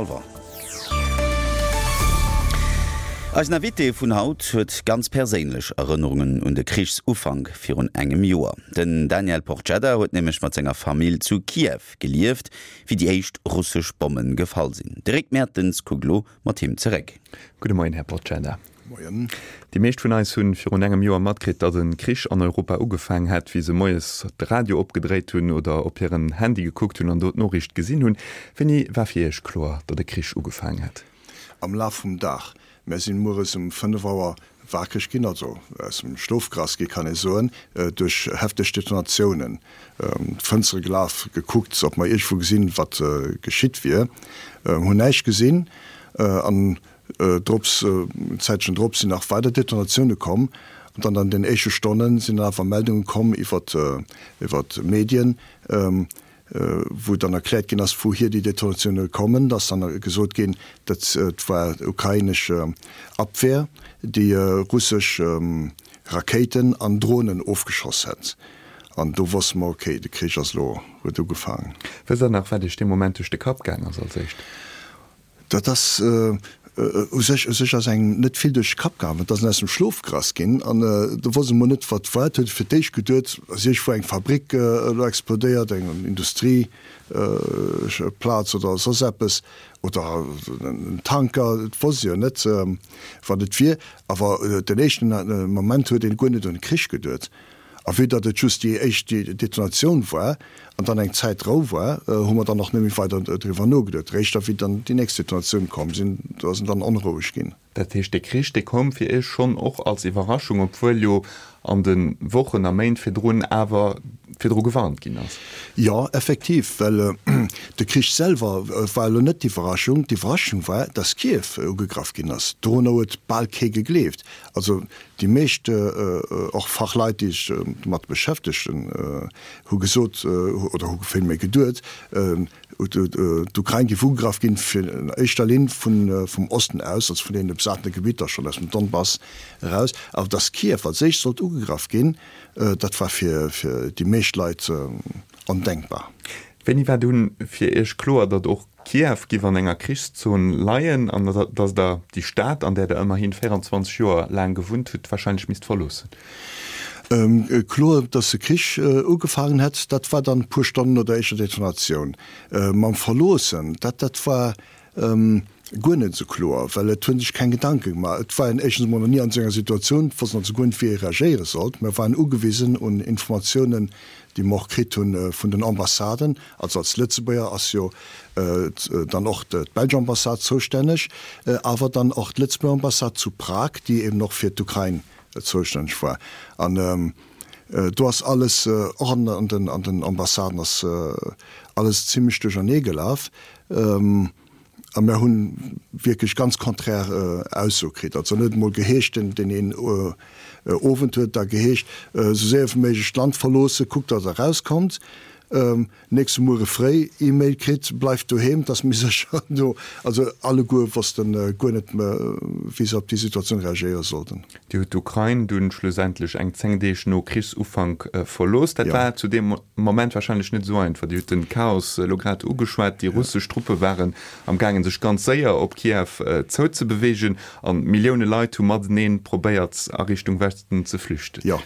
Revoir. Eisen Invité vun haut huet ganz perséinlech Erënnerungen un de Krichsufank virun engem Joer. Den Daniel Porcedda huet nämlech mat senger Famill zu Kiew gelieft, wéi déi éischt russesch Bomme gefall sinn. De Rick Mertens kuckt elo mat him zeréck. Gudde Moien, Här Porcedda. Moien. Déi meescht vun eis hunn virun engem Joer matkritt, datt e Krich an Europa ugefaang hätt, wéi se moies de Radio opgedréit hunn oder op hiren Handy gekuckt hunn an do d'Noriicht gesinn hunn. Wéini war fir Iech kloer, datt e Krich ugefaang hätt? Am Laf vum Dag. Mär sinn mueres um 5 Auer wakereg ginn, also aus dem Schlof gerass gi kann ee soen, duerch hefteg Detonatiounen. D'Fënstere gelaf, gekuckt, ob mer iergendwou gesinn, wat geschitt wier. Hunn näischt gesinn an Drops, en Zäitchen drop sinn nach weider Detonatioune komm an dann an den éischte Stonne sinn dann awer Meldunge komm iwwer iwwer d'Medien, wou dann erkläert ginn ass, wouhier déi Detonatioune kommen. Da ass dann gesot ginn, dat war ukrainesch Abwehr, déi russesch Rakéiten an Dronen ofgeschoss hätt. An do wosste mer, okay, de Krich ass elo, huet ugefaangen. Wësst Der nach, wat Iech dee Moment duerch de Kapp gaang ass als éischt? Dat ass u sech, u sech ass engem net vill duerch de Kapp gaangen. Et ass en aus dem Schlof gerass ginn an do wosst e mol net, wat war. Et huet e fir d'éischt geduet, ass iergendwou eng Fabrik elo explodéiert, eng Industrieplaz oder soss eppes oder en Tanker. Et wosst e jo net, wat et wier. Awer den éischten Moment huet een guer net un de Krich geduet. A vue datt et just déi éischt Detonatioun war an dann eng Zäit Rou war, hu mer dann och net méi weider driwwer nogeduet. Réischt da wéi dann déi nächst Detonatioun komm sinn, do ass en dann onroueg ginn. Dat heescht, dee Krich, dee koum fir Iech schonn och als Iwwerraschung, obwuel jo an de Wochen a Méint virdrun awer virdru gewarnt ginn ass? Jo, effektiv, well de Krich selwer war elo net d'Iwwerraschung. D'Iwwerraschung war, datt Kiew ugegraff ginn ass. Dorunner huet bal kee gegleeft. Also Déi meescht, och Fachleit, déi sech domat beschäftegen, hu gesot oder hu villméi geduet, d'Ukrain géif ugegraff ginn, fir an éischter Linn vum Osten aus, also vun deene besatene Gebitter schonn aus dem Donbass eraus. Awer datt Kiew als éischt sollt ugegraff ginn, dat war fir déi meescht Leit ondenkbar. Wéini war dunn fir Iech kloer, datt och Kiew giff an enger Krichszon leien an datt Der déi Stad, an där Der ëmmerhin 24 Joer laang gewunnt hutt, warscheinlech misst verloossen? Kloer, datt de Krich ugefaangen hätt, dat war dann e puer Stonnen no der éischter Detonatioun. Mam Verloossen, dat dat war guer net esou kloer, well et hu sech keng Gedanke gemaach. Et war een éischtens emol nach ni an esou enger Situatioun, et wosst een also guer net, wéi ee reagéiere sollt. Mir waren ugewisen un Informatiounen, déi mer och kritt hu vun den Ambassaden. Also als Lëtzebuerger ass jo dann och d'belsch Ambassade zoustänneg, awer dann och d'Lëtzebuerger Ambassade zu Prag, déi eben och fir d'Ukrain zoustänneg war. An do ass alles, och an den Ambassaden ass alles zimlech duerchernee gelaf. A mer hu wierklech ganz konträr Aussoe kritt. Also en huet emol geheescht, deen een Owend huet da geheescht, esou séier wéi méiglech d'Land verloossen, kuckt, datt Der erauskommt. Nächste Muere fréi E-Mail kritt, bleift doheem, 't ass méi sécher do. Also alleguer wosste guer net, wéi se op déi Situatioun reagéiere sollten. Dir hutt d'Ukrain dunn schlussendlech eng 10 Deeg no Krichsufank verlooss. Dat war zu deem Moment warscheinlech net esou einfach. Dir hutt de Chaos elo grad ugeschwat. Déi russesch Truppe waren am gaangen, sech ganz séier op Kiew zouzebeweegen an Millioune Leit hu matenee probéiert, a Richtung Westen ze flüchten. Jo,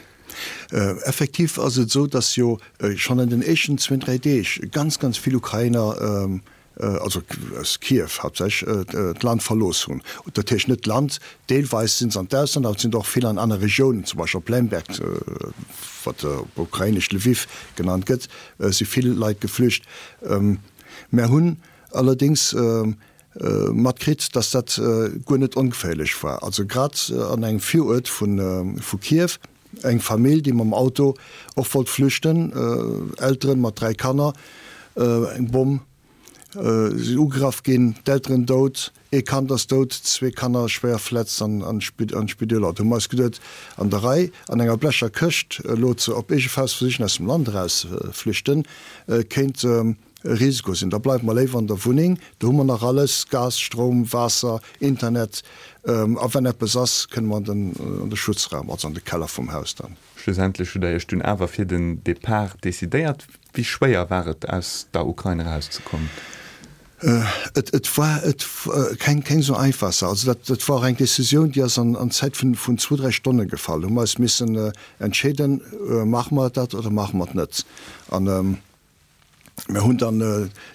effektiv ass et esou, datt jo schonn an den éischten zwéin, dräi Deeg ganz, ganz vill Ukrainer also aus Kiew haaptsächlech, d'Land verlooss hunn. Dat heescht net d'Land, deelweis sinn se an d'Ausland, awer et sinn der och vill an aner Regiounen, zum Beispill op Lemberg, wat op Ukrainesch Lwiw genannt gëtt, si vill Leit geflücht. Mär hunn allerdéngs matkritt, datt dat guer net ongeféierlech war. Also grad an engem Viruert vu Kiew, Eng Famill, déi mam Auto och wollt flüchten, Elteren mat 3 Kanner, eng Bomm, si ugegraff ginn, d'Elteren dout, ee Kand ass dout, zwee Kanner schwéier verletzt an an d'Spideeler. Do hu mer eis geduet, an der Rei, an enger blecher Këscht elo ze op eege Faust versichen aus dem Land eraus flüchten, kéint e Risiko sinn. Da bleiwe mer léiwer an der Wunneng, do hu mer nach alles, Gas, Stroum, Waasser, Internet, a wenn eppes ass, kënne mer an de Schutzraum, also an de Keller vum Haus dann. Schlussendlech hutt Der Iech dunn awer fir den Depart decidéiert. Wéi schwéier war et, aus der Ukrain erauszekommen? Et et war et keng keng esou einfach Saach. Also dat dat war och eng Decisioun, déi ass an an Zäit vun vun zwou, dräi Stonne gefall. Hu mer eis missen entscheeden, maache mer dat oder maache mer et net? An mir hunn dann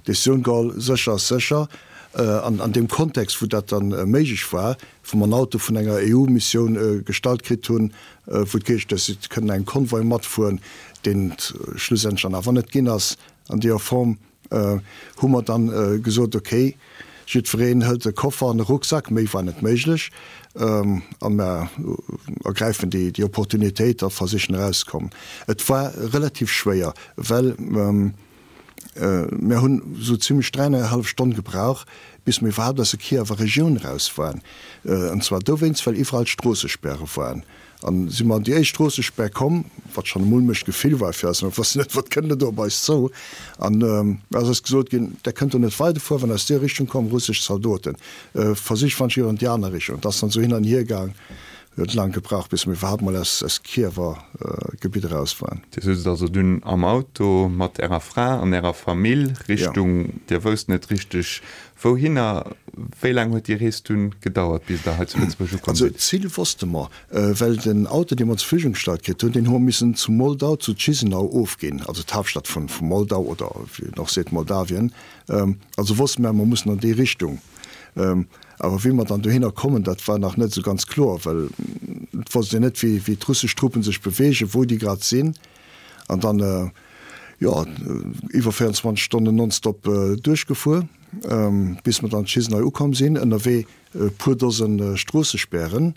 d'Decisioun geholl, sécher ass sécher. An an deem Kontext, wou dat dann méiglech war, wou mer en Auto vun enger EU-Missioun gestallt kritt hunn, wou et geheescht huet, si kënnen engem Konvoi matfueren, deen et schlussendlech dann awer net ginn ass an deeër Form, hu mer dann gesot, ok, jiddwereen hëlt e Koffer an e Rucksack, méi war net méiglech, a mer ergräifen déi Opportunitéit a versichen erauszekommen. Et war relativ schwéier, well mer hunn esou zimlech dräieinehallef Stonn gebrauch, bis mer iwwerhaapt aus der Kiewer Regioun eraus waren, an zwar dowéinst, well iwwerall Stroossespäre waren. An si mer an déi éischt Stroossespär komm, wat schonn e mulmecht Gefill war fir eis, mer wossten net, wat kënnt elo op eis zou. An ass eis gesot ginn, Der kënnt do net weiderfueren, well aus deer Richtung kommen russesch Zaldoten. Versicht wann ech an déi aner Richtung. Et ass dann esou hin an hier gaang, huet laang gebraucht, bis mer iwwerhaapt mol aus aus Kiewer Gebitt eraus waren. Dir soutzt also dunn am Auto mat Ärer Fra an Ärer Famill Richtung, Dir wousst net richteg Wouhinner? Wéi laang huet déi Rees dunn gedauert, bis Der hei zu Lëtzebuerg ukomm Also sidd? d'Zil wosste mer, well den Auto, dee mer zur Verfügung gestallt kritt hunn, deen hu mer missen zu Moldau, zu Chisinau ofginn, also d'Haaptstad vu Moldau oder wéi een och seet Moldawien. Also wosste mer, mer mussen an déi Richtung. Awer wéi mer dann dohinner kommen, dat war nach net esou ganz kloer, well et wosst een net, wéi d'russesch Truppen sech beweegen, wou déi grad sinn. An dann, jo, iwwer 24 Stonnen nonstop duerchgefuer, bis mer dann Chisinau ukomm sinn. Ënnerwee e puer Dose Stroossespären.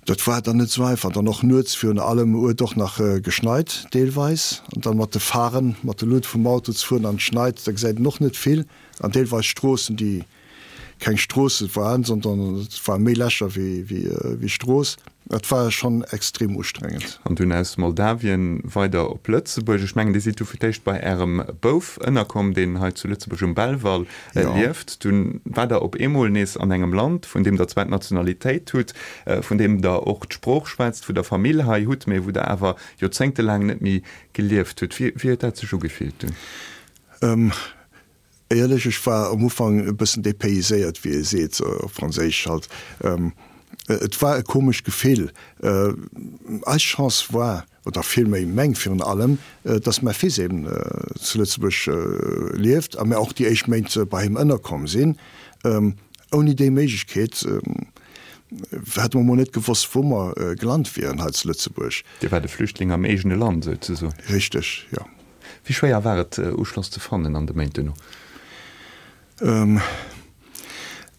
Dat war dann net esou einfach. Dann och nuets virun allem huet och nach geschneit deelweis. An dann mat de Pharen, mat de Luut vum Auto ze fueren an et schneit, da gesäit een och net vill. An deelweis Stroossen, déi keng Stroosse waren, sondern et ware méi Lächer wéi Strooss. Et war schonn extrem ustrengend. An dunn aus Moldawien weider op Lëtzebuerg. Ech mengen, Dir sidd du fir d'éischt bei Ärem Bouf ënnerkomm, deen hei zu Lëtzebuerg um Belval lieft. Dunn waart Der op eemol nees an engem Land, vun deem Der zwar d'Nationalitéit hutt, vun deem Der och d'Sprooch schwätzt, wou Der Famill hei hutt, mee wou Der awer joerzéngtelaang net méi gelieft hutt. Wéi huet dat sech ugefillt dunn? Éierlech, ech war am Ufank e bëssen dépayséiert, wéi ee seet, op Franséisch halt. Et war e komescht Gefill. Eis Chance war, oder villméi meng virun allem, dass mäi Fils eben zu Lëtzebuerg lieft a mir och déi éischt Méint bei him ënnerkomm sinn. Ouni déi Méiglechkeet hätte mer mol net gewosst, wou mer gelant wieren hei zu Lëtzebuerg. Dir waart e Flüchtling am eegene Land, souzesoen. Richteg, jo. Wéi schwéier war et, Uschloss ze fannen an de Méint duerno?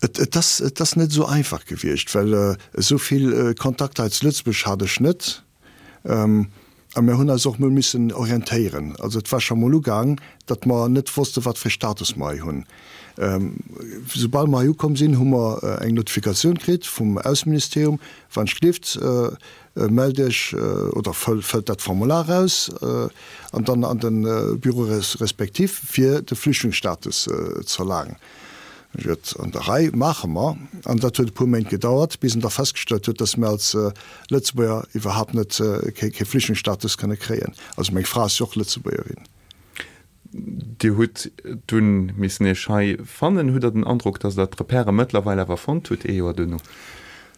Et ass, et ass net esou einfach gewiescht, well esou vill Kontakter hei zu Lëtzebuerg hat ech net. A mir hunn eis och mol missen orientéieren. Also et war scho mol ugaang, datt mer net wosste wat fir e Status mer hei hunn. Soubal mer hei ukomm sinn, hu mer eng Notifikatioun kritt vum Ausseministerium, wann ech gelift, Mellt Iech oder fëllt dat Formular aus an dann an de Bureau respectif fir de Flüchtlingsstatus z'erlaangen. Huet an der Rei, maache mer. An dat huet e puer Méint gedauert, bis en da festgestallt huet, dass mir als Lëtzebuerger iwwerhaapt net kee Flüchtlingsstatus kënne kréien. Also meng Fra ass jo och Lëtzebuergerin. Dir hutt dunn missen Iech hei fannen. Hutt Der den Androck, datt Der d'Repèrë mëttlerweil awer fonnt hutt, ee Joer duerno?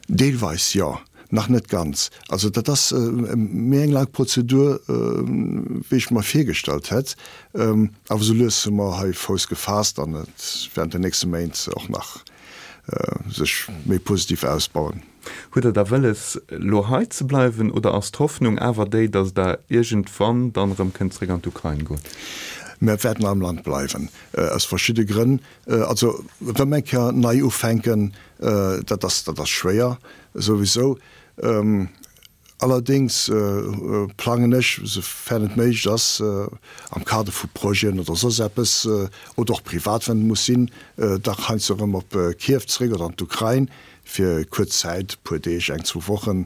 Deelweis jo, nach net ganz. Also dat ass méi eng laang Prozedur, wéi ech mer virgestallt hätt. Awer sou lues hu mer hei Fouss gefaasst an et wäert an den nächste Méint och nach sech méi positiv ausbauen. Hutt Der da wëlles, elo hei ze bleiwen oder ass d'Hoffnung awer déi, datt Der iergendwann dann erëm kënnt zréck an d'Ukrain goen? Mir wäerten am Land bleiwen, aus verschidde Grënn. Also erëm eng Kéier nei ufänken, dat ass, dat ass schwéier souwisou. Allerdéngs plangen ech, soufern et méiglech ass, am Kader vu Projeten oder soss eppes, oder och privat, wann et muss sinn, dach heiansdo erëm op Kiew zeréck oder an d'Ukrain fir kuerz Zäit, e puer Deeg, eng, zwou Wochen.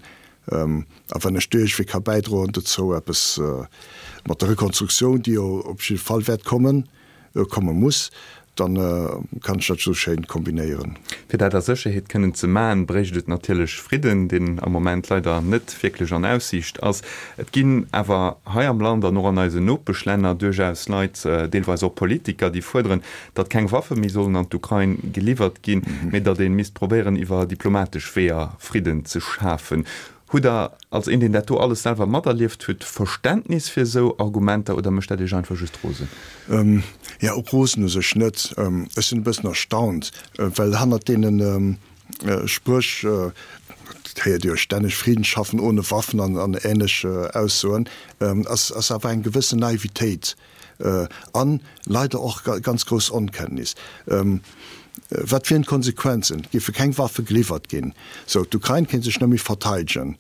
A wann ech do iergendwéi ka bäidroen dozou, eppes mat der Rekonstruktioun, déi jo op jidde Fall wäert kommen, komme muss, Dann kann ech dat sou schéin kombinéieren. Fir dat a Sécherheet kënnen ze maaen, bréicht et natierlech Fridden, deen am Moment leider net wierklech an Aussiicht ass. Et ginn awer hei am Land an och an eisen Nopeschlänner duerchaus Leit, deelweis och Politiker, déi fuerderen, datt keng Waffe méi sollen an d'Ukrain geliwwert ginn, mee datt ee misst probéieren, iwwer diplomatesch Weeër Fridden ze schafen. Hutt Der, als een, deen dat do alles selwer materlieft huet, Verständnis fir esou Argumenter oder mécht dat Iech einfach just rosen? Jo, rosen u sech net. Ech sinn e bëssen erstaunt, well hannert deene Spréch, dat héiert Dir jo stänneg, Frieden schaffen ohne Waffen an änlech Aussoen, ass awer eng gewëssen Naivitéit an leider och ganz grouss Onkenntnis. Wat wieren d'Konsequenzen? Géife keng Waffe geliwwert ginn, sou d'Ukrain kéint sech net méi verteidegen.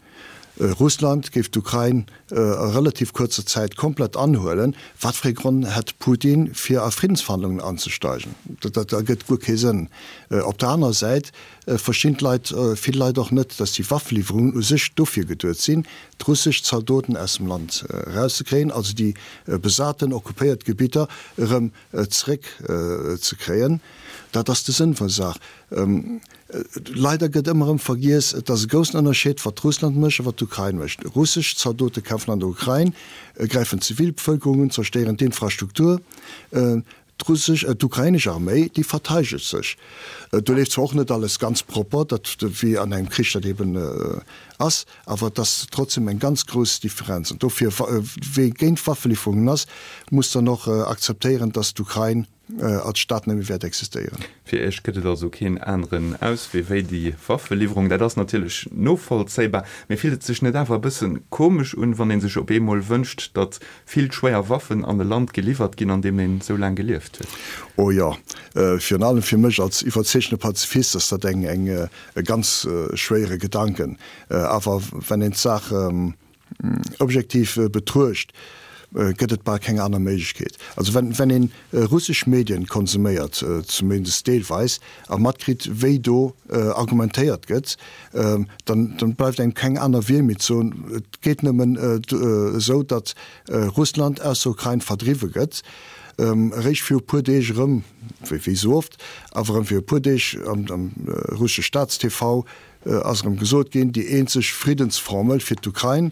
Russland géif d'Ukrain a relativ kuerzer Zäit komplett anhuelen. Wat fir ee Gronn hätt Putin fir a Friddensverhandlungen anzesteigen? Dat ergëtt guer kee Sënn. Op der anerer Säit verstinn d'Leit, vill Leit och net, datt déi Waffeliwwerungen u sech dofir geduet sinn, d'russesch Zaldoten aus dem Land erauszekréien, also déi besaten, occupéiert Gebitter erëm zeréck ze kréien. Dat ass de Sënn vun der Saach. Leider gëtt ëmmer erëm vergiess, et ass e groussen Ënnerscheed, wat Russland mécht a wat d'Ukrain mécht. Russesch Zaldote kämpfen an der Ukrain, gräifen d'Zivilbevëlkerung un, zerstéieren d'Infrastruktur. D'russesch, d'ukrainesch Arméi, déi verteidegt sech. Do leeft zwar och net alles ganz propper, dat wéi an engem Krich dat eben ass, awer et ass trotzdem eng ganz grouss Differenz. An dofir, wee géint Waffeliwwerungen ass, muss dann och akzeptéieren, datt d'Ukrain als Staat net méi wäert existéieren. Fir Iech gëtt et also keen aneren Auswee wéi déi Waffeliwwerung. Dat ass natierlech novollzéibar. Mee fillt et sech net awer e bësse komesch un, wann ee sech op eemol wënscht, datt vill schwéier Waffen an e Land geliwwert ginn, an deem een esou laang gelieft huet? Oh jo, virun allem fir mech als iwwerzeegtene Pazifist ass dat eng eng e ganz schwéiere Gedanken. Awer wenn een d'Saach objektiv betruecht, gëtt et bal keng aner Méiglechkeet. Also wenn wenn een russesch Medien konsuméiert, zumindest deelweis, a matkritt wéi do argumentéiert gëtt, dann dann bleift engem keng aner Wiel méi ze soen, et geet nëmmen esou, datt Russland aus der Ukrain verdriwwe gëtt. Eréischt viru puer Deeg erëm, wéi wéi esou oft, awer erëm viru puer Deeg am am russesche Staats-TV ass erëm gesot ginn, déi eenzeg Friddensformel fir d'Ukrain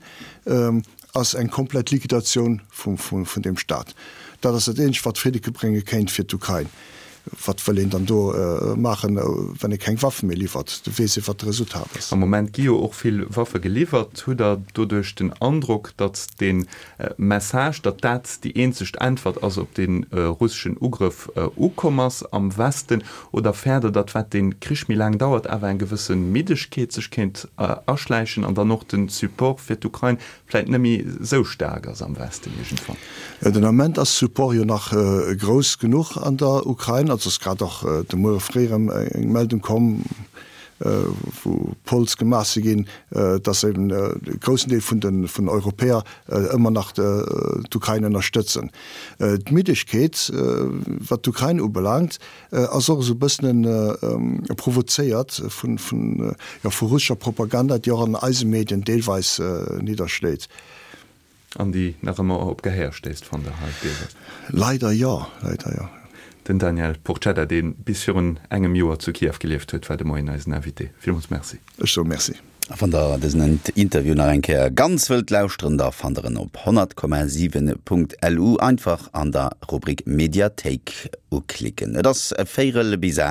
ass eng komplett Liquidatioun vun deem Staat. Dat ass dat eenzegt, wat Fridde brénge kéint fir d'Ukrain. Wat wëll een dann do maachen, wann ee keng Waffe méi liwwert? Do weess ee, wat de Resultat ass. Am Moment gi jo och vill Waffe geliwwert. Hutt Der doduerch den Androck, datt dee Message, datt dat déi eenzegt Äntwert ass op dee russeschen Ugrëff, ukomm ass am Westen? Oder fäert Der, datt, wat dee Krich méi laang dauert, awer eng gewësse Middegkeet sech kéint aschläichen an dann och de Support fir d'Ukrain vläit net méi esou staark ass am Westen iergendwann? Den Ament ass Support jo nach grouss genuch an der Ukrain. Also ass grad och de Muere fréi erëm eng Meldung komm, wou Polls gemaach si ginn, datt eben e groussen Deel vun den Europäer ëmmer nach d'Ukrain ënnerstëtzen. D'Middegkeet, wat d'Ukrain ubelaangt, ass och esou e bëssen provozéiert vun, jo, vu russescher Propaganda, déi och an eise Medien deelweis nidderschléit. An déi nach ëmmer op Gehéier stéisst, fannt Der hei deelweis? Leider jo, leider jo. Den Daniel Porcedda, dee bis virun engem Joer zu Kiew gelieft huet, war de Moien eisen Invité. Villmools Merci. Ech soe Merci. A wann der dësen Interview nach eng Kéier ganz wëllt lauschteren, da fannt der en op 100,7.lu. Einfach an der Rubrik Mediathéik uklicken. Et ass véirel bis 8.